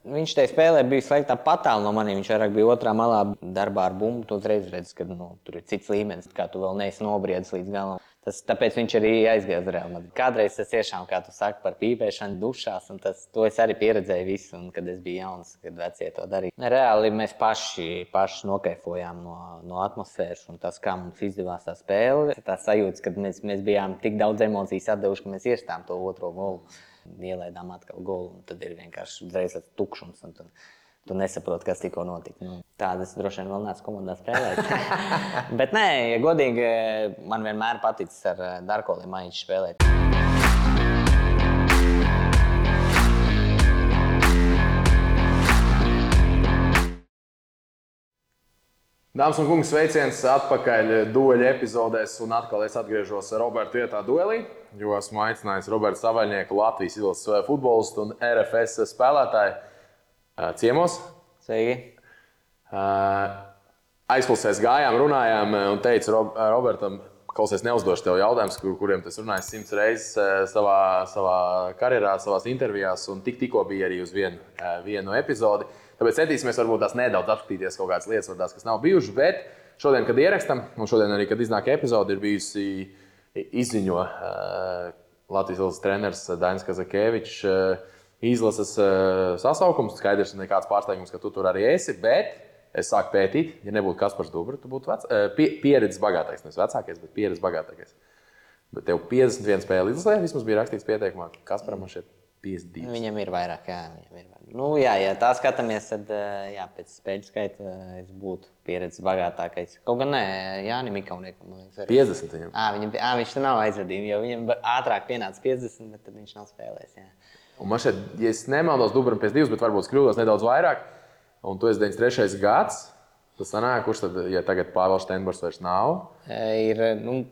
Viņš tajā spēlē bija slēgtā patālu no maniem. Viņš vairāk bija otrā malā darbā ar bumbu. Tu uzreiz redzi, ka tur ir cits līmenis, kā tu vēl neesi nobriedis līdz galam. Tāpēc viņš arī aizgāja uz Real Madrid. Kādreiz tas tiešām, kā tu saki, par pīpēšanu dušās, un to es arī pieredzēju visu, un kad es biju jauns, kad vecie to darīja. Reāli mēs paši nokaifojām no atmosfēras, un tas, kā mums izdevās tā spēle, tā sajūta, ka mēs bijām tik daudz emocijas atdevuši, ka mēs iestām to otro golu. Ielaidām atkal golu, un tad ir vienkārši uzreiz tukšums. Tu nesaproti, kas tikko notika. Tādas droši vien vēl neesmu komandā spēlējis. Bet nē, ja godīgi, man vienmēr paticis ar Darko Limaiņu spēlēt. Dāmas un kungi, sveiciens atpakaļ dueļa epizodēs, un atkal es atgriežos Roberta vietā duelī, jo esmu aicinājis Roberta Savaļnieku, Latvijas izlases futbolistu un RFS spēlētāju ciemos. Sveiki! Aizklausēs gājām, runājām un teicu Robertam, klausies, neuzdošu tev jautājumus, kuriem tas runājis 100 reizes savā karjerā, savās intervijās, un tikko bija arī uz vienu epizodi. Tāpēc centīsimies varbūt tās nedaudz apskatīties kaut kādas lietas, varbūt tās, kas nav bijušas, bet šodien, kad ierakstam, un šodien arī, kad iznāk epizode, ir bijusi izziņo Latvijas izlases treneris Dainis Kazakēvičs izlases sasaukums. Skaidrs, nekāds pārsteigums, ka tu tur arī esi, bet es sāku pētīt, ja nebūtu Kaspars Dubra, tu būtu pieredzes bagātākais, nevis vecākais, bet pieredzes bagātākais. Bet tev 51 spēle izlasē, vismaz bija rakstīts pieteikumā, Kasparam man šeit 52. Viņam ir vairāk, jā. Ja tā skatāmies, tad pēc spēļu skaita es būtu pieredzes bagātākais. Kaut gan nē, Jānim Ikauniekam, man liekas, arī. 50 viņam. Viņš tur nav aizvadījumi, jo viņam ātrāk pienāca 50, bet tad viņš nav spēlējis, jā. Un man šeit, ja es nemaldos, Dubram pēc 2, bet varbūt kļūdos nedaudz vairāk, un tu esi 93. gads, tas sanāk, kurš tad, ja tagad Pāvils Steinbors vairs nav?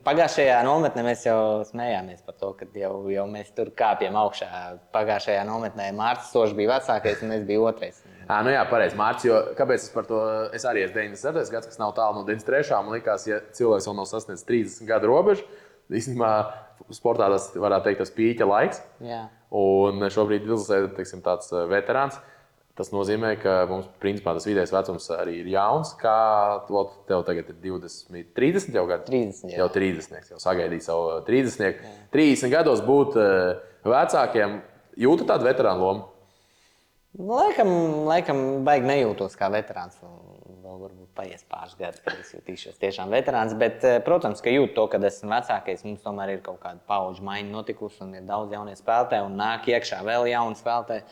Pagājušajā nometnē mēs jau smējāmies par to, ka jau mēs tur kāpjam augšā. Pagājušajā nometnē Mārcis Sošs bija vecākais un es biju otrais. Jā, pareizi, Mārcis, jo kāpēc es par to, es arī esmu 97. gads, kas nav tālu no 93. Man likās, ja cilvēks vēl nav sasniedzis 30 gadu robežu, īstenībā sportā tas varētu teikt tas pīķa laiks. Jā. Un šobrīd izlasē, teiksim, tāds veterāns. Tas nozīmē, ka mums principā tas vidējais vecums arī ir jauns. Kā tev tagad ir 20, 30 jau gadi? 30, jā. Jau 30, jau sagaidīja savu 30. 30 gados būt vecākiem, jūtu tādu veterānu lomu? Laikam baigi nejūtos kā veterāns. Vēl varbūt paies pāris gadus, kad es jutīšos tiešām veterāns. Bet, protams, ka jūtu to, kad esmu vecākais. Mums tomēr ir kaut kāda paudžu maiņa notikusi un ir daudz jaunie spēlētāji un nāk iekšā vēl jauni spēlētāji.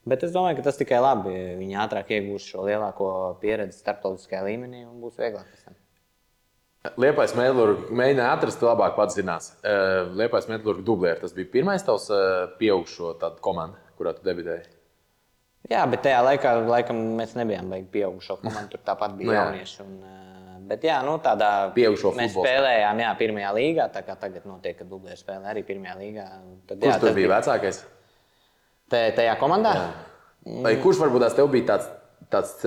Bet es domāju, ka tas tikai labi. Viņi ātrāk iegūs šo lielāko pieredzi starptautiskajā līmenī un būs vieglāk pēc tam. Liepais Metlurg mēģināja atrast, labāk pats zinās. Liepais Metlurg dublēri. Tas bija pirmais tavs pieaugušo tādu komandu, kurā tu debitēji? Jā, bet tajā laikā laikam mēs nebijām baigi pieaugušo komandu. Tur tāpat bija jaunieši. Bet jā, tādā pieaugušo mēs futbolā spēlējām pirmajā līgā. Tā kā tagad notiek, ka dublēri spēlē arī pirmajā līgā. Kurš tur bija vecākais? Tajā komandā? Vai kurš varbūt tev bija tāds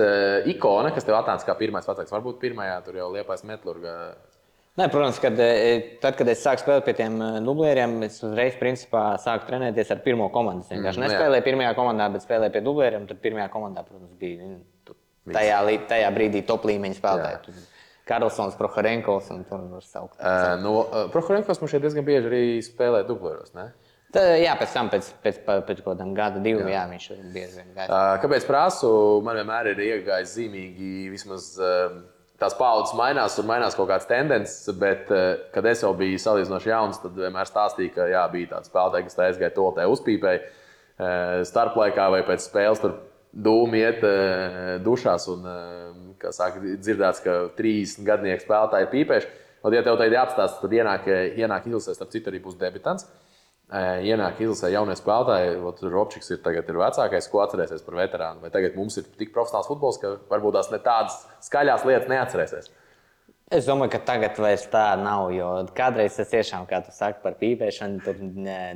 ikona, kas tev atnāca kā pirmais vecāks? Varbūt pirmajā tur jau Liepais Metlurga. Nē, protams, kad es sāku spēlēt pie tiem dublēriem, es uzreiz principā sāku trenēties ar pirmo komandu. Es vienkārši nespēlēju pirmajā komandā, bet spēlēju pie dublēriem. Tad pirmajā komandā, protams, bija tajā brīdī top līmeņa spēlētāji. Karlsons, Prohorenkovs un tur var saukt. Prohorenkovs man šeit diezgan bieži arī spēlē dublēros, ne? Jā, pēc tam, pēc kaut kādam gada, 2, jā, viņš bieži vien gāja. Kāpēc prasu? Man vienmēr ir iegājis zīmīgi, vismaz tās paudzes mainās, tur mainās kaut kādas tendences, bet, kad es jau biju salīdzinoši jauns, tad vienmēr stāstīja, ka jā, bija tāds spēlētāji, kas tā aizgāja toltē uzpīpēja starplaikā vai pēc spēles tur dūmi iet dušās un, kā saka, dzirdēts, ka 30 gadnieki spēlētāji ir pīpējuši. Un, ja tev tagad jāapstāsta, tad ienāk izlasē, starp citu arī būs debitants. Ienāk izlasē jaunie spēlētāji, Robčiks ir vecākais, ko atcerēsies par veterānu. Vai tagad mums ir tik profesionāls futbols, ka varbūt tās ne tādas skaļās lietas neatcerēsies? Es domāju, ka tagad vairs tā nav, jo kādreiz tas tiešām, kā tu saki, par pīpēšanu, tur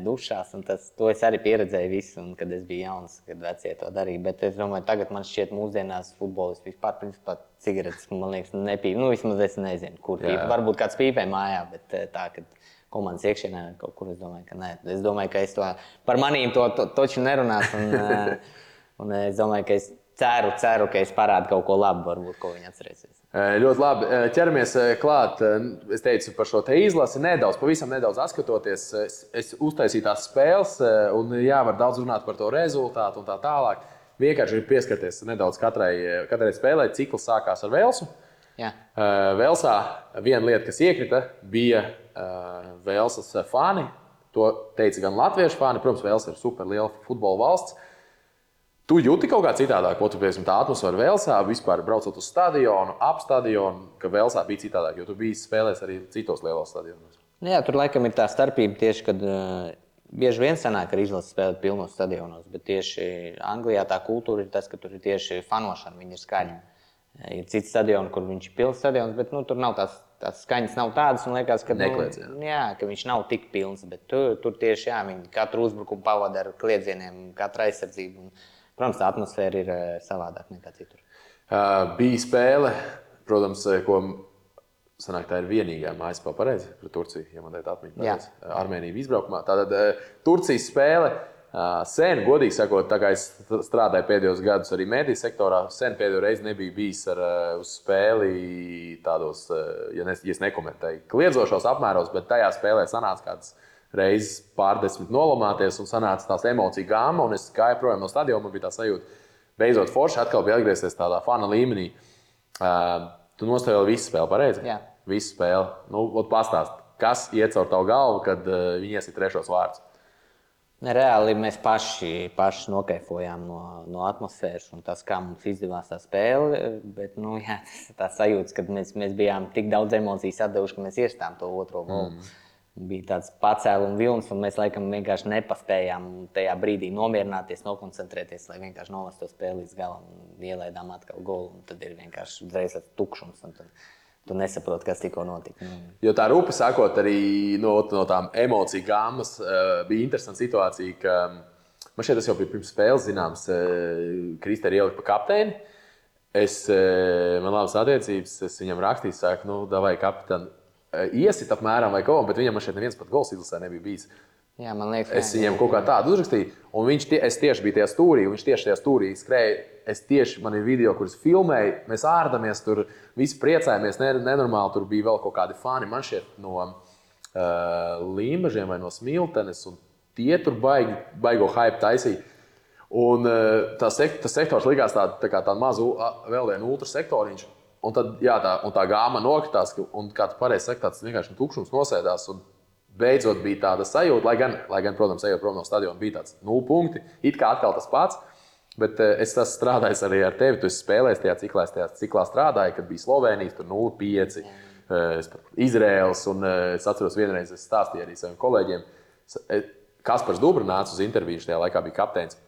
dušās, un to es arī pieredzēju visu, un kad es biju jauns, kad vecie to darīja. Bet es domāju, tagad man šķiet mūsdienās futbolisti vispār, principā, cigaretes, man liekas, nepīp. Vismaz es nezinu, kur pīpē. Varbūt kāds pīpē mājā, bet tā, kad komandas iekšienē kaut kur, es domāju, ka nē. Es domāju, ka es to par manīm to taču nerunās. Un es domāju, ka es ceru, ka es parādu kaut ko labu, varbūt, ko viņi atcerēsies. Ļoti labi. Ķeramies klāt. Es teicu par šo te izlasi pavisam nedaudz atskatoties. Es uztaisīju tās spēles, un jā, var daudz runāt par to rezultātu un tā tālāk. Vienkārši ir pieskarties nedaudz katrai spēlē. Cikls sākās ar Velsu. Jā. Velsā viena lieta, kas iekrita, bija Velsas fani. To teica gan latviešu fani. Protams, Velsa ir super liela futbola valsts. Tu jūti kaut kā citādāk, ko tu piemēram tā atmosfēra Velsā, vispār braucot uz stadionu, ap stadionu, ka Velsā bija citādāk, jo tu biji spēlējis arī citos lielos stadionos. Jā, tur laikam ir tā starpība tieši, kad bieži vien sanāk, ka izlases spēlēt pilnos stadionos, bet tieši Anglijā tā kultūra ir tas, ka tur ir tieši fanošana, viņi ir skaļi. Ir citi stadioni, kur viņš ir pilns stadions, bet tur nav tās skaņas nav tādas, un liekas, ka, ka viņš nav tik pilns, bet tur tieši, viņi katru uzbrukumu pavada ar kliedzieniem, katru aizsardzību. Protams, tā atmosfēra ir savādāk nekā citur. Bija spēle, protams, ko sanāk, tā ir vienīgā mājas spēle pareizi pret Turciju, ja man teikt atmiņa pareizi. Armēnija izbraukumā. Tātad Turcijas spēle sen, godīgi sakot, tā kā es strādāju pēdējos gadus arī mediju sektorā, sen pēdējo reizi nebija bijis uz spēli tādos, ja es nekomentēju, kliedzošos apmēros, bet tajā spēlē sanāca kāds reizes pārdesmit nolamāties un sanāca tās emociju gāma, un es gāju projām no stadiona, man bija tā sajūta, beidzot forši atkal bija atgriezties tādā fana līmenī. Tu nostāvēji visu spēli, pareizi? Jā. Visu spēli. Pastāst, kas iet caur tavu galvu, kad viņi iesit trešos vārdus? Reāli mēs paši nokaifojām no atmosfēras un tas, kā mums izdevās tā spēle, bet tā sajūta, ka mēs bijām tik daudz emociju atdevuši, ka mēs iestām to otro golu. Bija tāds pacēluma vilnis, un mēs laikam vienkārši nepaspējām tajā brīdī nomierināties, nokoncentrēties, lai vienkārši novestu to spēli līdz galam un ielaidām atkal golu. Un tad ir vienkārši uzreiz tāds tukšums, un tad tu nesaproti, kas tikko notika. Jo tā rupi sakot, arī no tām emociju gāmas bija interesanta situācija, ka man šeit tas jau bija pirms spēles zināms, Kristē ir ielikt pa kapteini. Man labas attiecības, es viņam rakstīju, saku, davai kapitāni, iesit apmēram vai kaut ko, bet viņam šeit neviens pat gols izlasē nebija bijis. Jā, man liekas, es viņam kaut kā tādu uzrakstīju, un es tieši biju tajā stūrī, un viņš tieši tajā stūrī skrēja. Man ir video, kurus filmēju, mēs ārdamies, tur visi priecājamies, nenormāli, tur bija vēl kaut kādi fani, man šeit no Līmažiem vai no Smiltenes, un tie tur baigo hype taisīja. Un tas sektors likās tā mazu vēl vienu ultrasektoriņš. Un tad tā gāma nokritās, un kā tu pareizi saki, tāds vienkārši tukšums nosēdās. Un beidzot bija tāda sajūta, lai gan, protams, ejot prom no stadiona, bija tāds 0 punkti. It kā atkal tas pats, bet es strādāju arī ar tevi. Tu esi spēlējis tajā ciklā strādāji, kad bija Slovēnijas, tur 0-5, Izraels. Un es atceros vienreiz, es stāstīju arī saviem kolēģiem. Kaspars Dubra nāca uz interviju, šajā laikā bija kapteinis.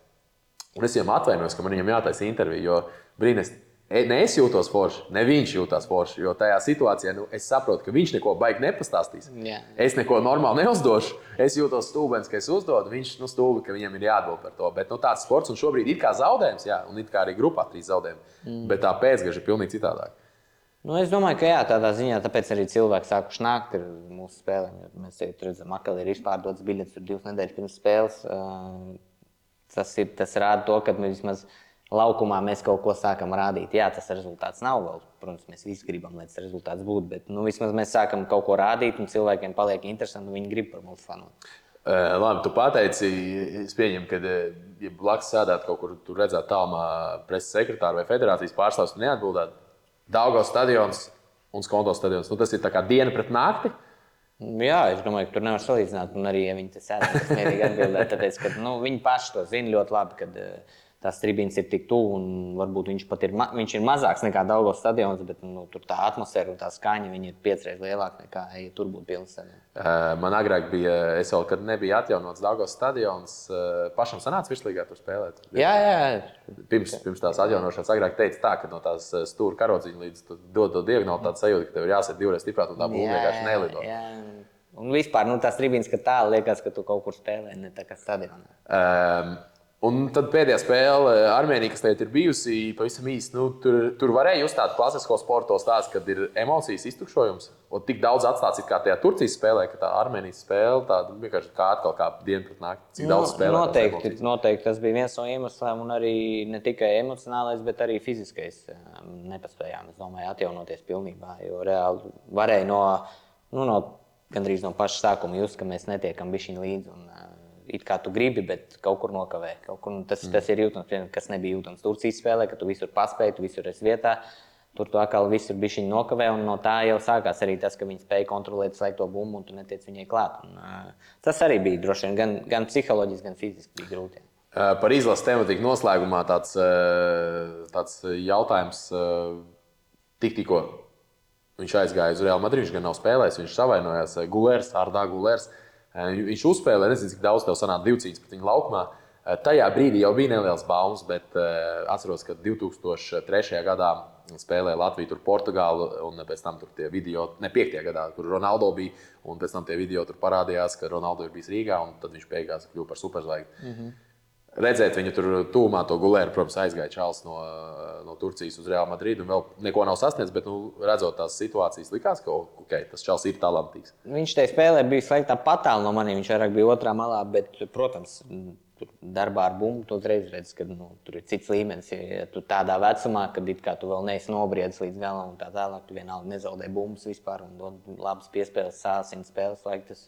Un es viņam atvainojos, ka man viņam jātaisa intervija, jo brīnēs. Ne es jūtos forši, ne viņš jūtās forši, jo tajā situācijā es saprotu, ka viņš neko baigi nepastāstīs. Jā. Es neko normāli neuzdošu. Es jūtos stulbens, ka es uzdodu, viņš stulbi, ka viņam ir jāatbild par to. Bet tāds sports, un šobrīd ir kā zaudējums, un it kā arī grupā 3 zaudējumi. Bet tā pēcgaža ir pilnīgi citādāk. Es domāju, ka tādā ziņā, tāpēc arī cilvēki sākuši nākt ar mūsu spēlēm. Mēs redzam, ka ir izpārdotas biļetes 2 nedēļas pirms spēles. Tas rāda to, ka vismaz laukumā mēs kaut ko sākam rādīt. Jā, tas rezultāts nav vēl. Protams, mēs visi gribam, lai tas rezultāts būtu, bet vismaz mēs sākam kaut ko rādīt, un cilvēkiem paliek interesanti, un viņi grib par mums fanot. Labi, tu pateici, es pieņemu, ka, ja blakus sēdētu kaut kur, tur redzētu tālumā preses sekretāru vai federācijas pārstāvs, tu neatbildētu. Daugavas stadions un Skonto stadions. Tas ir tā kā diena pret nakti? Jā, es domāju, ka tur nevar salīdzināt, un arī, ja viņi te sēdētu, tas mierīgi atbildētu, tāpēc, ka viņi paši to zina ļoti labi, kad tās tribīnes ir tik tuvu, un varbūt viņš ir mazāks nekā Daugavas stadions, bet tur tā atmosfēra un tā skaņa ir 5 reizes lielāka nekā, ja tur būtu pilns stadions. Man agrāk bija, kad nebija atjaunots Daugavas stadions, pašam sanāca virslīgā tur spēlēt? Jā. Pirms tās atjaunošanas agrāk teica tā, ka no tās stūra karodziņa līdz dod diagonāli tāda sajūta, ka tev ir jāsēt 2 reizes stiprāk, un tā būtu vienkārši nelido. Jā. Un vispār tās tribīnes, ka tā liekas, ka tu kaut kur spēlē, ne tā kā stadionā. Un tad pēdējā spēle Armēnija, kas tagad ir bijusi pavisam īsti, tur varēja just tādu klasisko sporto stāstu, kad ir emocijas iztukšojums. Un tik daudz atstāts kā tajā Turcijas spēlē, ka tā Armēnijas spēle tāda vienkārši kā atkal kā diena pret nakti. Cik daudz spēlē? Noteikti tas bija viens no iemesliem, un arī ne tikai emocionālais, bet arī fiziskais. Nepaspējām, es domāju, atjaunoties pilnībā, jo reāli varēja no gandrīz no paša sākuma just, ka mēs netiekam bišķiņ līdzi. Un, it kā tu gribi, bet kaut kur nokavē. Tas ir jūtams, kas nebija jūtams Turcijas spēlē, ka tu visur paspēji, tu visur esi vietā. Tur tu atkal visur bišķiņ nokavē, un no tā jau sākās arī tas, ka viņi spēja kontrolēt slēgto bumbu, un tu netiec viņai klāt. Un, tas arī bija droši vien gan psiholoģiski, gan fiziski bija grūti. Par izlases tematiku noslēgumā tāds jautājums tikko. Viņš aizgāja uz Real Madrid, viņš gan nav spēlējis, viņš savainojās Ardā Gulērs. Viņš uzspēlēja, nezinu, cik daudz tev sanāca divcīņas pret viņu laukumā. Tajā brīdī jau bija neliels baumas, bet atceros, ka 2003. gadā spēlēja Latviju tur Portugālu, un pēc tam tur tie video, ne 5. gadā, kur Ronaldo bija, un pēc tam tie video tur parādījās, ka Ronaldo ir bijis Rīgā, un tad viņš beigās kļuva par superzvaigzni. Redzēt viņu tur tūmā to Gulēru, protams, aizgāja čalis no Turcijas uz Real Madrid, un vēl neko nav sasniedzis, bet redzot tās situācijas, likās, ka tas čalis ir talantīgs. Viņš tajā spēlē bija slēgtā patāli no maniem, viņš vairāk bija otrā malā, bet, protams, darbā ar bumbu tu uzreiz redz, ka tur ir cits līmenis. Ja tu tādā vecumā, kad it kā tu vēl neesi nobriedis līdz galam un tā tālāk, tu vienalga nezaudē bumbas vispār un dod labas piespēles, sāsina spēles laiku.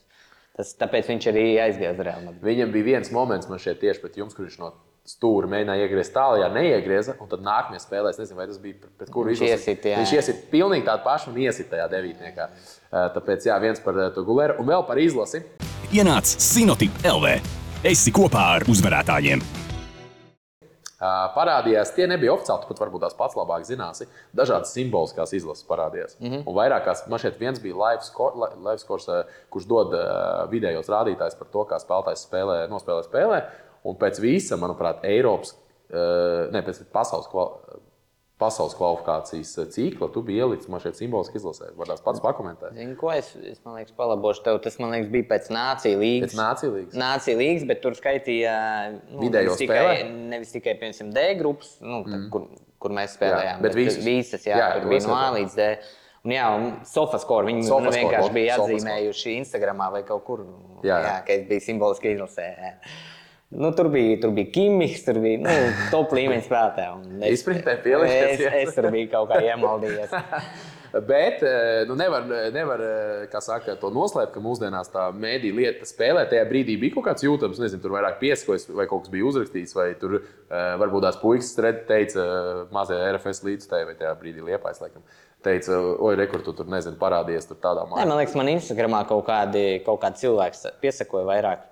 Tāpēc viņš arī aizgāja uz Real Madrid. Viņam bija viens moments, man šeit tieši pret jums, kur viņš no stūra mēģināja iegriezt tālajā, neiegrieza, un tad nākamajā spēlē, es nezinu, vai tas bija pret kuru izlasi. Viņš iesit pilnīgi tādu pašu un iesit tajā devītniekā. Tāpēc jā, viens par to Gulēru un vēl par izlasi. Ienāc Sinotip LV. Esi kopā ar uzvarētājiem. Parādījās, tie nebija oficiāli, tu pat varbūt tās pats labāk zināsi. Dažādas simboliskās izlases parādījās. Un vairākās, man šeit viens bija live scores, kurš dod vidējos rādītājus par to, kā spēlētājs nospēlē spēlē. Un pēc visa, manuprāt, pēc pasaules kvalifikācijas cikla, tu biji ielicis man šeit simboliski izlasē. Varbūt pats pakomentēt. Zini, ko es man liekas, palabošu tev. Tas, man liekas, bija pēc Nāciju līgas. Pēc Nāciju līgas? Nāciju līgas, bet tur skaitīja vidējo spēlē? Nevis tikai, piemēram, D grupas, kur mēs spēlējām. Bet visas, tur bija no A līdz D. Un jā, SofaScore, viņi vienkārši bija atzīmējuši Instagramā vai kaut kur, ka es biju simboliski izlasē. Tur bija Kimihs, tur bija top līmeņa spēlētāji. Izpratnē pieliekties. Es tur biju kaut kā iemaldījies. Bet nevar kā saka, to noslēpt, ka mūsdienās tā mēdī lieta spēlē. Tajā brīdī bija kaut kāds jūtams, nezinu, tur vairāk piesakojas vai kaut kas bija uzrakstīts, vai tur varbūt tās puikas teica mazajā RFS līdzstājā vai tajā brīdī Liepājs, laikam. Teica, oi, rekur, tu tur, nezinu, parādījies tur tādā mājā. Man liekas, man Instagramā kaut kāds cilvēks piesakoja vairāk.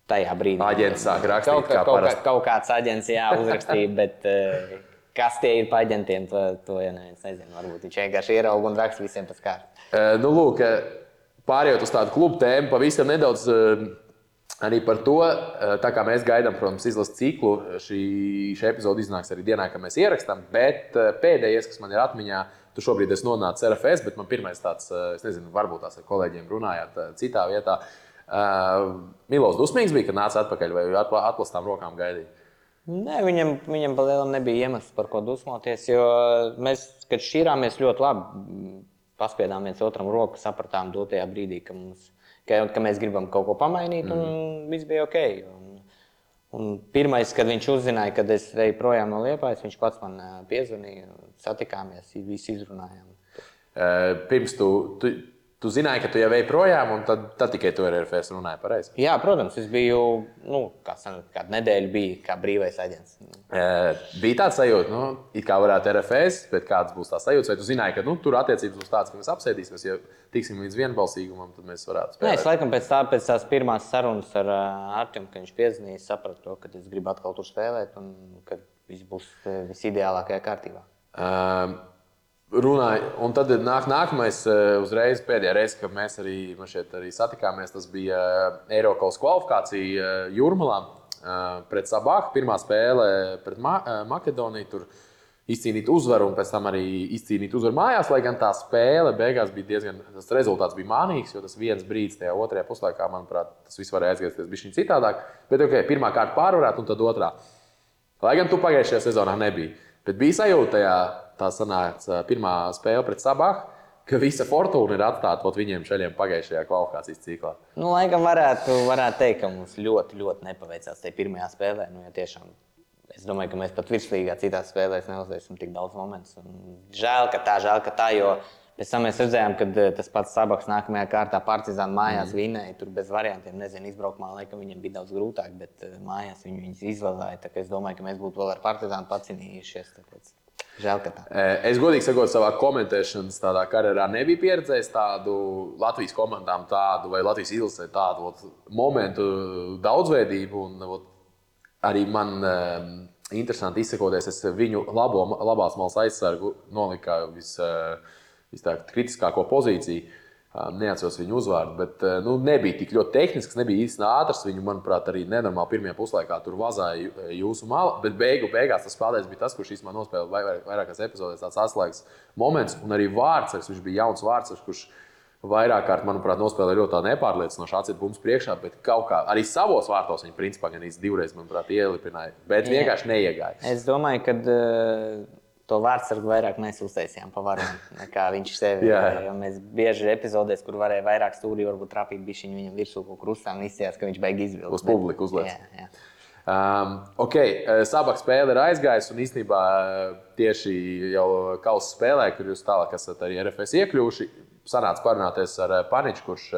Tajā brīdī. Aģents sāk rakstīt, kā parasti. Kaut kāds aģents uzrakstīja, bet kas tie ir pa aģentiem, to ja neviens nezina. Varbūt viņš vienkārši ierauga un raksta visiem pēc kārtas. Lūk, pārējot uz tādu klubu tēmu, pavisam nedaudz arī par to, tā kā mēs gaidām, protams, izlases ciklu, šī epizode iznāks arī dienā, kad mēs ierakstām, bet pēdējais, kas man ir atmiņā, tu šobrīd esi nonācis RFS, bet man pirmais tāds, es nezinu, varbūt tās ar kolēģiem runājāt citā vietā. Milos dusmīgs bija, kad nāca atpakaļ vai atklāstām rokām gaidīja? Nē, viņam pa lielam nebija iemesls, par ko dusmoties, jo mēs, kad šķīrāmies ļoti labi, paspiedām viens otram roku, sapratām dotajā brīdī, ka mēs gribam kaut ko pamainīt, un viss bija ok. Un pirmais, kad viņš uzzināja, kad es eju projām no Liepājas, viņš pats man piezvanīja, satikāmies, visi izrunājām. Pirms tu zināji, ka tu jau ej projām, un tad tikai tu ar RFS runāji pareizi? Jā, protams, es biju, kādu nedēļu biju kā brīvais aģents. Bija tāds sajūta, it kā varētu RFS, bet kāds būs tās sajūtas, vai tu zināji, ka tur attiecības būs tāds, ka mēs apsēdīsimies, ja tiksim līdz vienbalsīgumam, tad mēs varētu spēlēt? Nē, es laikam pēc tās pirmās sarunas ar Artjom, kad viņš piezvanīja, sapratu to, ka es gribu atkal tur spēlēt un ka viss būs visideālākajā kārtībā. Runāju, un tad nākamais uzreiz pēdējā reize, kad mēs šeit arī satikāmies, tas bija Eiropas kvalifikācija Jūrmalā pret Sabāku. Pirmā spēle pret Makedoniju. Tur izcīnīt uzvaru un pēc tam arī izcīnīt uzvaru mājās, lai gan tā spēle beigās bija diezgan, tas rezultāts bija mānīgs, jo tas viens brīdis tajā otrajā puslaikā, manuprāt, tas viss varēja aizgriezties bišķiņ citādāk. Bet pirmā kārta pārvarēt un tad otrā. Lai gan tu pagājušajā sezonā nebija. Bet bija sajūta tā sanāca pirmā spēle pret Sabahu, ka visa fortūna ir atstāta viņiem šaļiem pagājušajā kvalifikācijas ciklā. Laikam varētu teikt, ka mums ļoti, ļoti nepaveicās tajā pirmajā spēlē. Ja tiešām, es domāju, ka mēs pat virslīgā citās spēlēs neuzvarēsim tik daudz momentus. Žēl, ka tā, jo pēc tam mēs redzējām, ka tas pats Sabahs nākamajā kārtā Partizāna mājās vinēja. Tur bez variantiem, nezinu, izbraukumā laikam viņiem bija daudz grūtāk, bet mājās viņus izvazāja. Tā kā es domāju, ka mēs būtu vēl ar Partizānu pacinījušies. Tāpēc. Žēl, ka tā. Es godīgi sakot, savā komentēšanas tādā karjerā nebiju pieredzējis tādu Latvijas komandām vai Latvijas izlasē tādu momentu daudzveidību. Un, arī man interesanti izsakoties, es viņu labās malas aizsargu noliku kritiskāko pozīciju. Neatceros viņu uzvārdu, bet nebija tik ļoti tehnisks, nebija īsti ātrs. Viņu, manuprāt, arī nenormāli pirmajā puslaikā tur vazāja jūsu mala. Bet beigās tas spēlētājs bija tas, kurš īstenībā nospēlēja vairākās epizodēs tāds atslēgas moments. Un arī vārdsargs, viņš bija jauns vārdsargs, kurš vairāk kārt, manuprāt, nospēlēja ļoti nepārliecinoši atcīt bumbu priekšā. Bet kaut kā arī savos vārtos viņa principā gan divreiz, manuprāt, ielipināja. Bet vienkārši neiegāja. Es domāju, ka to vārdsargu vairāk mēs uztaisījām pa varonu nekā viņš sevi. Jo mēs bieži epizodēs, kur varēja vairāk stūrī, varbūt trapīt bišķiņu viņam virsū kaut kur uzstām, izsījās, ka viņš beig izvilkt. Uz publiku uzliec. Sabahs spēle ir aizgājusi un īstenībā tieši jau kausa spēlē, kur jūs tālāk esat arī RFS iekļuvuši, sanāca parunāties ar Paniču, kurš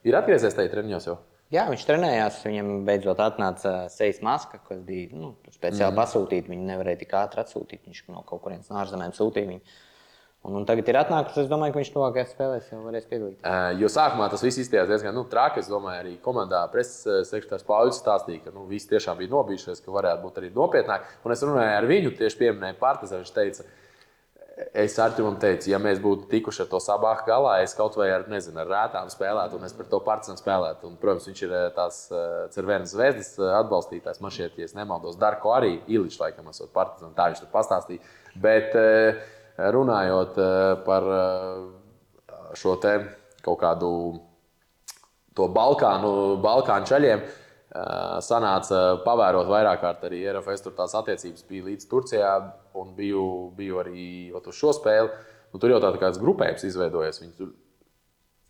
ir atgriezies tajā treniņos jau. Jā, viņš trenējās, viņam beidzot atnāca sejas maska, kas bija speciāli pasūtīta. Viņu nevarēja tik ātri atsūtīt, viņš no kaut kurienes no ārzemēm sūtīja viņu. Un tagad ir atnākusi, es domāju, ka viņš tuvākajās spēlēs jau varēs piedalīties. Jo sākumā tas viss izstījās diezgan traki, es domāju, arī komandā preses sekretārs Pauļs stāstīja, ka visi tiešām bija nobijušies, ka varētu būt arī nopietnāk. Un es runāju ar viņu, tieši pieminēju Partizānu, viņš teica, es Artimam teicu, ja mēs būtu tikuši ar to Sabahu galā, es kaut vai ar rētām spēlētu, un es par to Partizānu spēlētu. Un, protams, viņš ir tās Cervenas Zvezdas atbalstītājs. Man šķiet, ja es nemaldos, Darko arī Iličs laikam esot Partizānu, tā viņš tur pastāstīja. Bet runājot par šo te kaut kādu to Balkānu čaļiem, sanāca pavērot vairāk kārt arī RFS, tur tās attiecības bija līdz Turcijā un biju arī uz šo spēli. Tur jau tāds grupējums izveidojies. Viņi tur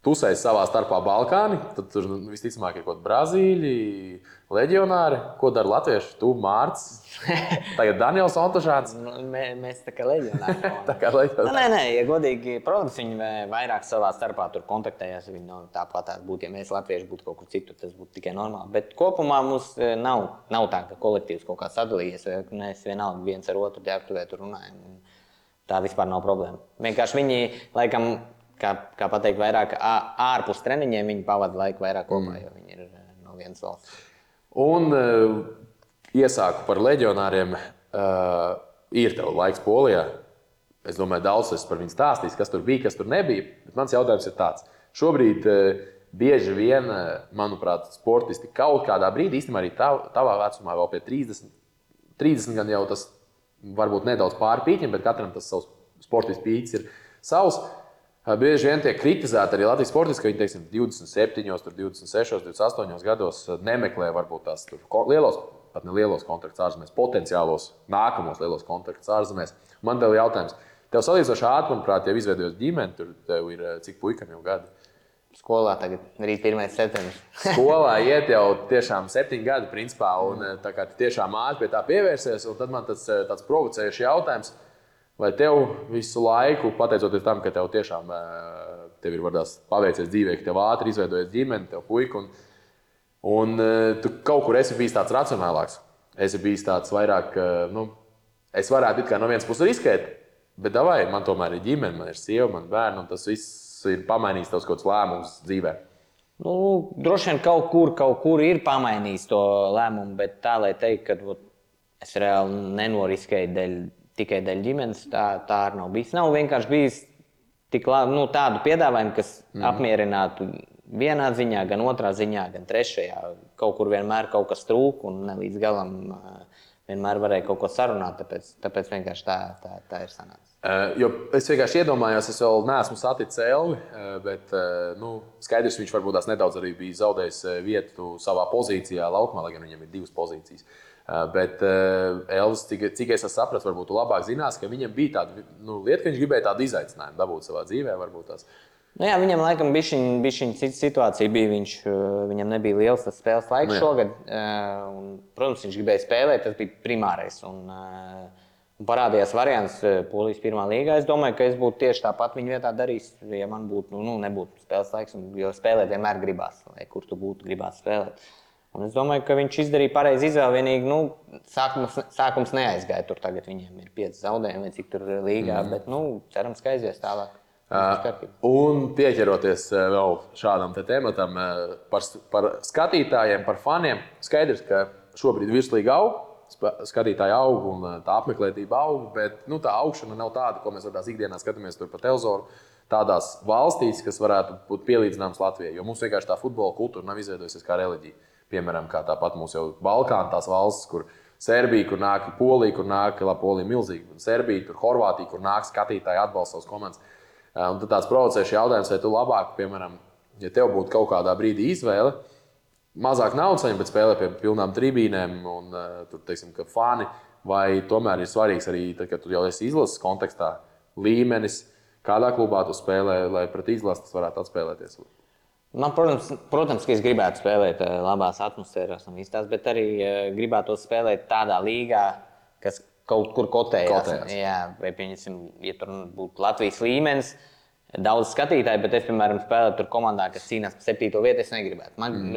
tusēs savā starpā Balkāni, tad tur visticamāk ir kaut kādi Brazīļi, leģionāri. Ko dara latvieši? Tu, Mārts, tagad Daniels Ontošāns. Mēs tā kā leģionāri. Tā kā leģionāri. Nē, ja godīgi, protams, viņi vairāk savā starpā tur kontaktējās. Viņi tāpat būtu, ja mēs latvieši būtu kaut kur citur, tas būtu tikai normāli. Bet kopumā mums nav tā, ka kolektīvs kaut kā sadalījies, vai mēs vienalga viens ar otru ģērbtuvē tur runājam. Tā vispār nav problēma. Vienkārši viņi, laikam, kā pateikt, vairāk ārpus treniņiem viņi pavada laiku vairāk kopā, jo viņi ir no vienas valsts. Un iesāku par leģionāriem. Ir tev laiks Polijā. Es domāju, daudz es par viņu stāstīs, kas tur bija, kas tur nebija. Bet mans jautājums ir tāds. Šobrīd bieži vien, manuprāt, sportisti kaut kādā brīdī, īstenībā arī tavā vecumā, vēl pie 30 gan jau tas varbūt nedaudz pārpīķim, bet katram tas savs sportists pīķis ir savs. Bieži vien tiek kritizēti arī Latvijas sportisti, ka viņi, teiksim, 27, 26, 28 gados nemeklē varbūt tās lielos, pat ne lielos kontraktus ārzemēs, potenciālos nākamos lielos kontraktus ārzemēs. Man tev jautājums. Tev salīdzinoši ātri, manuprāt, jau izveidojas ģimene, tur tev ir cik puikam jau gadi? Skolā tagad rīt 1. septembris. Skolā iet jau tiešām 7 gadi, principā, un tā kā tiešām ātri pie tā pievērsies, un tad man tāds provocējuši jautājums. Vai tev visu laiku, pateicoties tam, ka tev tiešām tev ir paveicies dzīvē, ka tev ātri izveidojas ģimene, tev puika, un tu kaut kur esi bijis tāds racionālāks. Esi bijis tāds vairāk, es varētu it kā no vienas puses riskēt, bet davai, man tomēr ir ģimene, man ir sieva, man bērni, un tas viss ir pamainījis tavs kaut kāds lēmums dzīvē. Droši vien kaut kur ir pamainījis to lēmumu, bet tā, lai teikt, ka es reāli nenoriskēju tikai dēļ ģimenes, tā arī nav bijis. Nav vienkārši bijis tik tādu piedāvājumu, kas apmierinātu vienā ziņā, gan otrā ziņā, gan trešajā. Kaut kur vienmēr kaut kas trūk un ne līdz galam vienmēr varēja kaut ko sarunāt, tāpēc vienkārši tā ir sanācis. Jo es vienkārši iedomājos, es vēl neesmu saticis Elvi, bet skaidrs, viņš varbūt tās nedaudz arī bija zaudējis vietu savā pozīcijā laukumā, lai gan viņam ir 2 pozīcijas. Bet Elvis, cik es sapratu, varbūt tu labāk zinās, ka viņam bija tāda lieta, ka viņš gribēja tādu izaicinājumu dabūt savā dzīvē. Varbūt tās. Jā, viņam laikam bija cita situācija. Viņam nebija liels tas spēles laiks šogad. Protams, viņš gribēja spēlēt, tas bija primārais. Un parādījās variants Polijas pirmā līgā. Es domāju, ka es būtu tieši tāpat viņa vietā darījis, ja man būtu, nebūtu spēles laiks. Jo spēlēt vienmēr gribās, lai kur tu būtu, gribās spēlēt. Un es domāju, ka viņš izdarīja pareizi izvēli. Vienīgi sākums neaizgāja. Tur tagad viņiem ir 5 zaudējumi, vai cik tur līgā. Bet cerams, ka aizies tālāk. Un pieķeroties vēl šādam tematam par skatītājiem, par faniem, skaidrs, ka šobrīd virslīga aug, skatītāji aug un tā apmeklētība aug, bet tā augšana nav tāda, ko mēs tādās ikdienā skatāmies tur pa televizoru, tādās valstīs, kas varētu būt pielīdzināmas Latvijai, jo mums vienkārši tā futbola kultūra nav izveidojusies kā reliģija. Piemēram, kā tāpat mums jau Balkāna tās valstis, kur Serbija, kur nāk Polija, kur nāk Polija milzīgi, Serbija, tur Horvātija, kur nāk skatītāji atbalsta savas komandas. Un tad tāds provocējuši jautājums, vai tu labāk, piemēram, ja tev būtu kaut kādā brīdī izvēle, mazāk naudas saņemt, bet spēlē pie pilnām tribīnēm un tur, teiksim, ka fani, vai tomēr ir svarīgs arī, tad, kad tu jau esi izlases kontekstā, līmenis, kādā klubā tu spēlē, lai pret izlases varētu atspēlēties? Man, protams, ka es gribētu spēlēt labās atmosfērās un visās, bet arī gribētu spēlēt tādā līgā, kas kaut kur kotējās. Jā, vai, pieņemsim, ja tur būtu Latvijas līmenis, daudz skatītāju, bet es, piemēram, spēlētu tur komandā, kas cīnās par 7. vietu, es negribētu.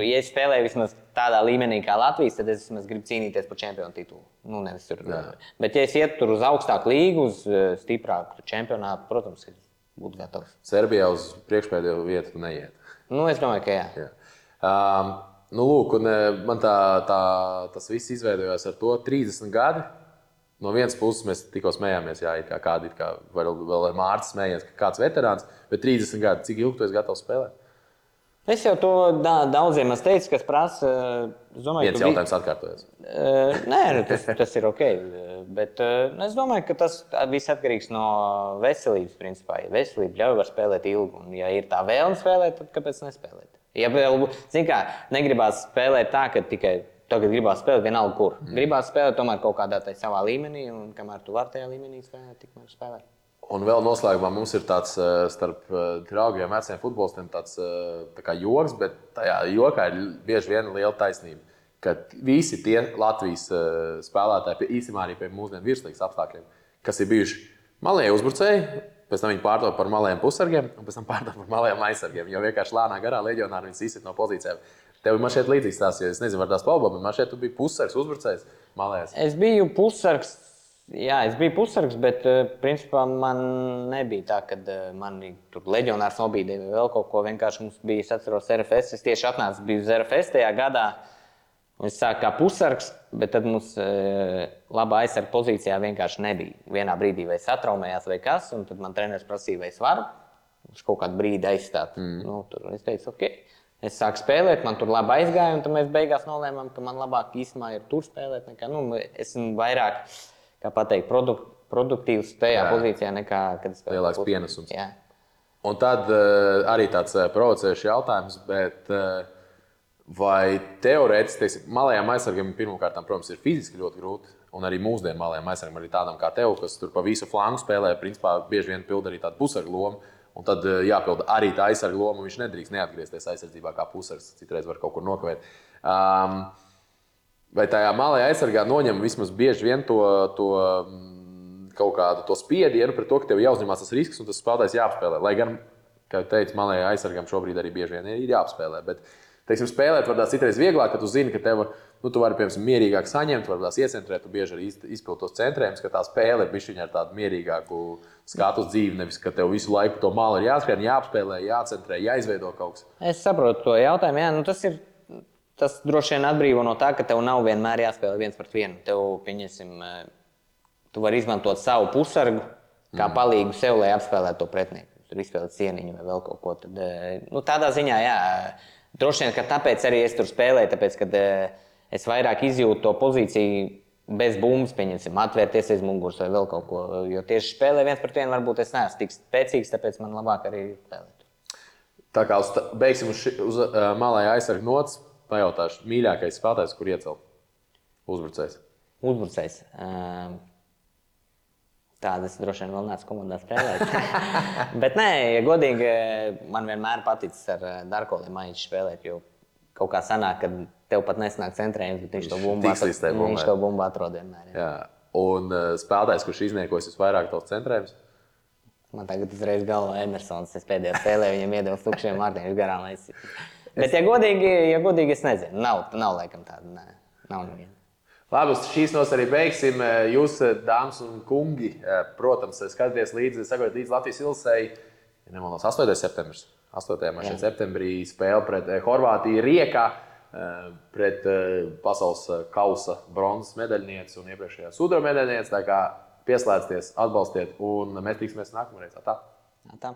Ja es spēlēju vismaz tādā līmenī kā Latvijas, tad es vismaz gribu cīnīties par čempionu titulu. Nevis tur. Bet ja es ietu tur uz augstāku līgu, uz stiprāku čempionātu, protams, es būtu gatavs. Serbijā uz priekšpēdējo vietu neiet. Es domāju, ka jā. Lūk, un man tas viss izveidojās ar to 30 gadi. No vienas puses mēs tikko smējāmies, kādi ir, vēl ar Mārtu smējies, ka kāds veterāns, bet 30 gadi, cik ilgi tu esi gatavs spēlēt? Es jau to daudziem esmu teicis, kas prasa. Viens jautājums atkārtojas. Nē, tas ir ok. Bet es domāju, ka tas viss atkarīgs no veselības, principā. Ja veselība ļauj var spēlēt ilgi, un ja ir tā vēlme spēlēt, tad kāpēc nespēlēt? Ja vēl, negribās spēlēt tā, ka tikai tagad gribās spēlēt vienalga kur. Gribās spēlēt tomēr kaut kādā savā līmenī, un kamēr tu vari tajā līmenī spēlēt, tikmēr spēlēt. Un vēl noslēgumā mums ir tāds starp draugiem, veciem futbolistiem tāds tā kā joks, bet tajā jokā ir bieži vien liela taisnība, ka visi tie Latvijas spēlētāji, īstenībā arī pie mūsdienu virslīgas apstākļiem, kas ir bijuši malēji uzbrucēji, pēc tam viņi pārtop par malējiem pusargiem, un pēc tam pārtop par malējiem aizsargiem, jo vienkārši lēnā garā leģionāri viņus izsit no pozīcijām. Tev man šeit līdzīgs tās, jo es nezinu, var tās palbot, bet man šeit tu biji pussargs, uzbrucējs, malējs. Es biju pussargs, bet principā man nebija tā, ka mani tur leģionārs nobīdīja vai vēl kaut ko. Vienkārši mums bija, es atceros, RFS. Es tieši atnācu, biju uz RFS tajā gadā. Un es sāku kā pussargs, bet tad mums labā aizsarga pozīcijā vienkārši nebija. Vienā brīdī vai satraumējās vai kas, un tad man treneris prasīja, vai es varu uz kaut kādu brīdi aizstāt. Tur es teicu, ok. Es sāku spēlēt, man tur labi aizgāja, un tad mēs beigās nolēmām, ka man labāk īstenībā ir tur spēlēt. Esmu vairāk, kā pateikt, produktīvs tajā pozīcijā nekā, kad es spēlēju. Lielāks pienesums. Jā. Un tad arī tāds provocējuši jautājums, bet vai teorētiski, malējām aizsargam pirmkārt, protams, ir fiziski ļoti grūti, un arī mūsdienu malējām aizsargam arī tādam kā tev, kas tur pa visu flangu spēlē, principā bieži vien pilda arī tādu pusargu lomu. Un tad jāpilda arī tā aizsarga loma, un viņš nedrīkst neatgriezties aizsardzībā kā pusargs. Citreiz var kaut kur nokavēt. Vai tajā malējā aizsargā noņem vismaz bieži vien to kaut kādu to spiedienu pret to, ka tev jāuzņemās tas risks un tas spēlētājs jāapspēlē. Lai gan, kā jau teicu, malējā aizsargam šobrīd arī bieži vien ir jāapspēlē. Bet, teiksim, spēlēt var tās citreiz vieglāk, ka tu zini, ka tev tu vari, piemēram, mierīgāk saņemt, varbūt iecentrēt, tu bieži arī izpildi tos centrējumus, ka tā spēle ir bišķiņa ar tādu mierīgāku skatu uz dzīvi, nevis, ka tev visu laiku to malu ir jāskrien, jāapspēlē, jācentrē, jāizveido kaut kas. Es saprotu to jautājumu, jā, tas droši vien atbrīvo no tā, ka tev nav vienmēr jāspēlē 1-1. Tev, pieņemsim, tu vari izmantot savu pusargu kā palīgu sev, lai apspēlētu to pretinieku. Tur izspēlēt cieniņu vai vēl kaut ko. Tad, tādā ziņā, jā, droši vien, ka tāpēc arī es tur spēlēju, tāpēc, kad es vairāk izjūtu to pozīciju bez bumbas, pieņemsim, atvērties aiz muguras vai vēl kaut ko. Jo tieši spēlē viens pret vienu varbūt es neesmu tik spēcīgs, tāpēc man labāk arī spēlēt. Tā kā beigsim uz malā aizsargu nots, pajautāšu, mīļākais spēlētājs, kur iecelt? Uzbrucējs. Uzbrucējs. Tādas droši vien vēl neesmu komandā spēlēt. Bet nē, ja godīgi, man vienmēr paticis ar Darko Limaiņu spēlēt, jo kaut kā sanāk, ka tev pat nesanāk centrējums, bet viņš to bumbu atrod vienmēr. Jā. Un spēlētājs, kurš izniekojas visvairāk tavs centrējums? Man tagad uzreiz galvā Emersons. Es pēdējā spēlē viņam iedevu tukšiem vārtiem, viņš garām aizsit. Bet, ja godīgi, es nezinu. Nav laikam tāda. Nē, nav neviena. Labi, uz šīs nos arī beigsim. Jūs, dāmas un kungi, protams, skatāties līdzi, sakojiet līdzi Latvijas Ilsei. Ja nemaldos, 8. septembris. 8. septembrī spēle pret Horvātiju Riekā, pret pasaules kausa bronzas medaļnieci un iepriekšējā sudraba medaļnieci. Tā kā pieslēdzieties, atbalstiet, un mēs tiksimies nākamreiz. Tā. Tā.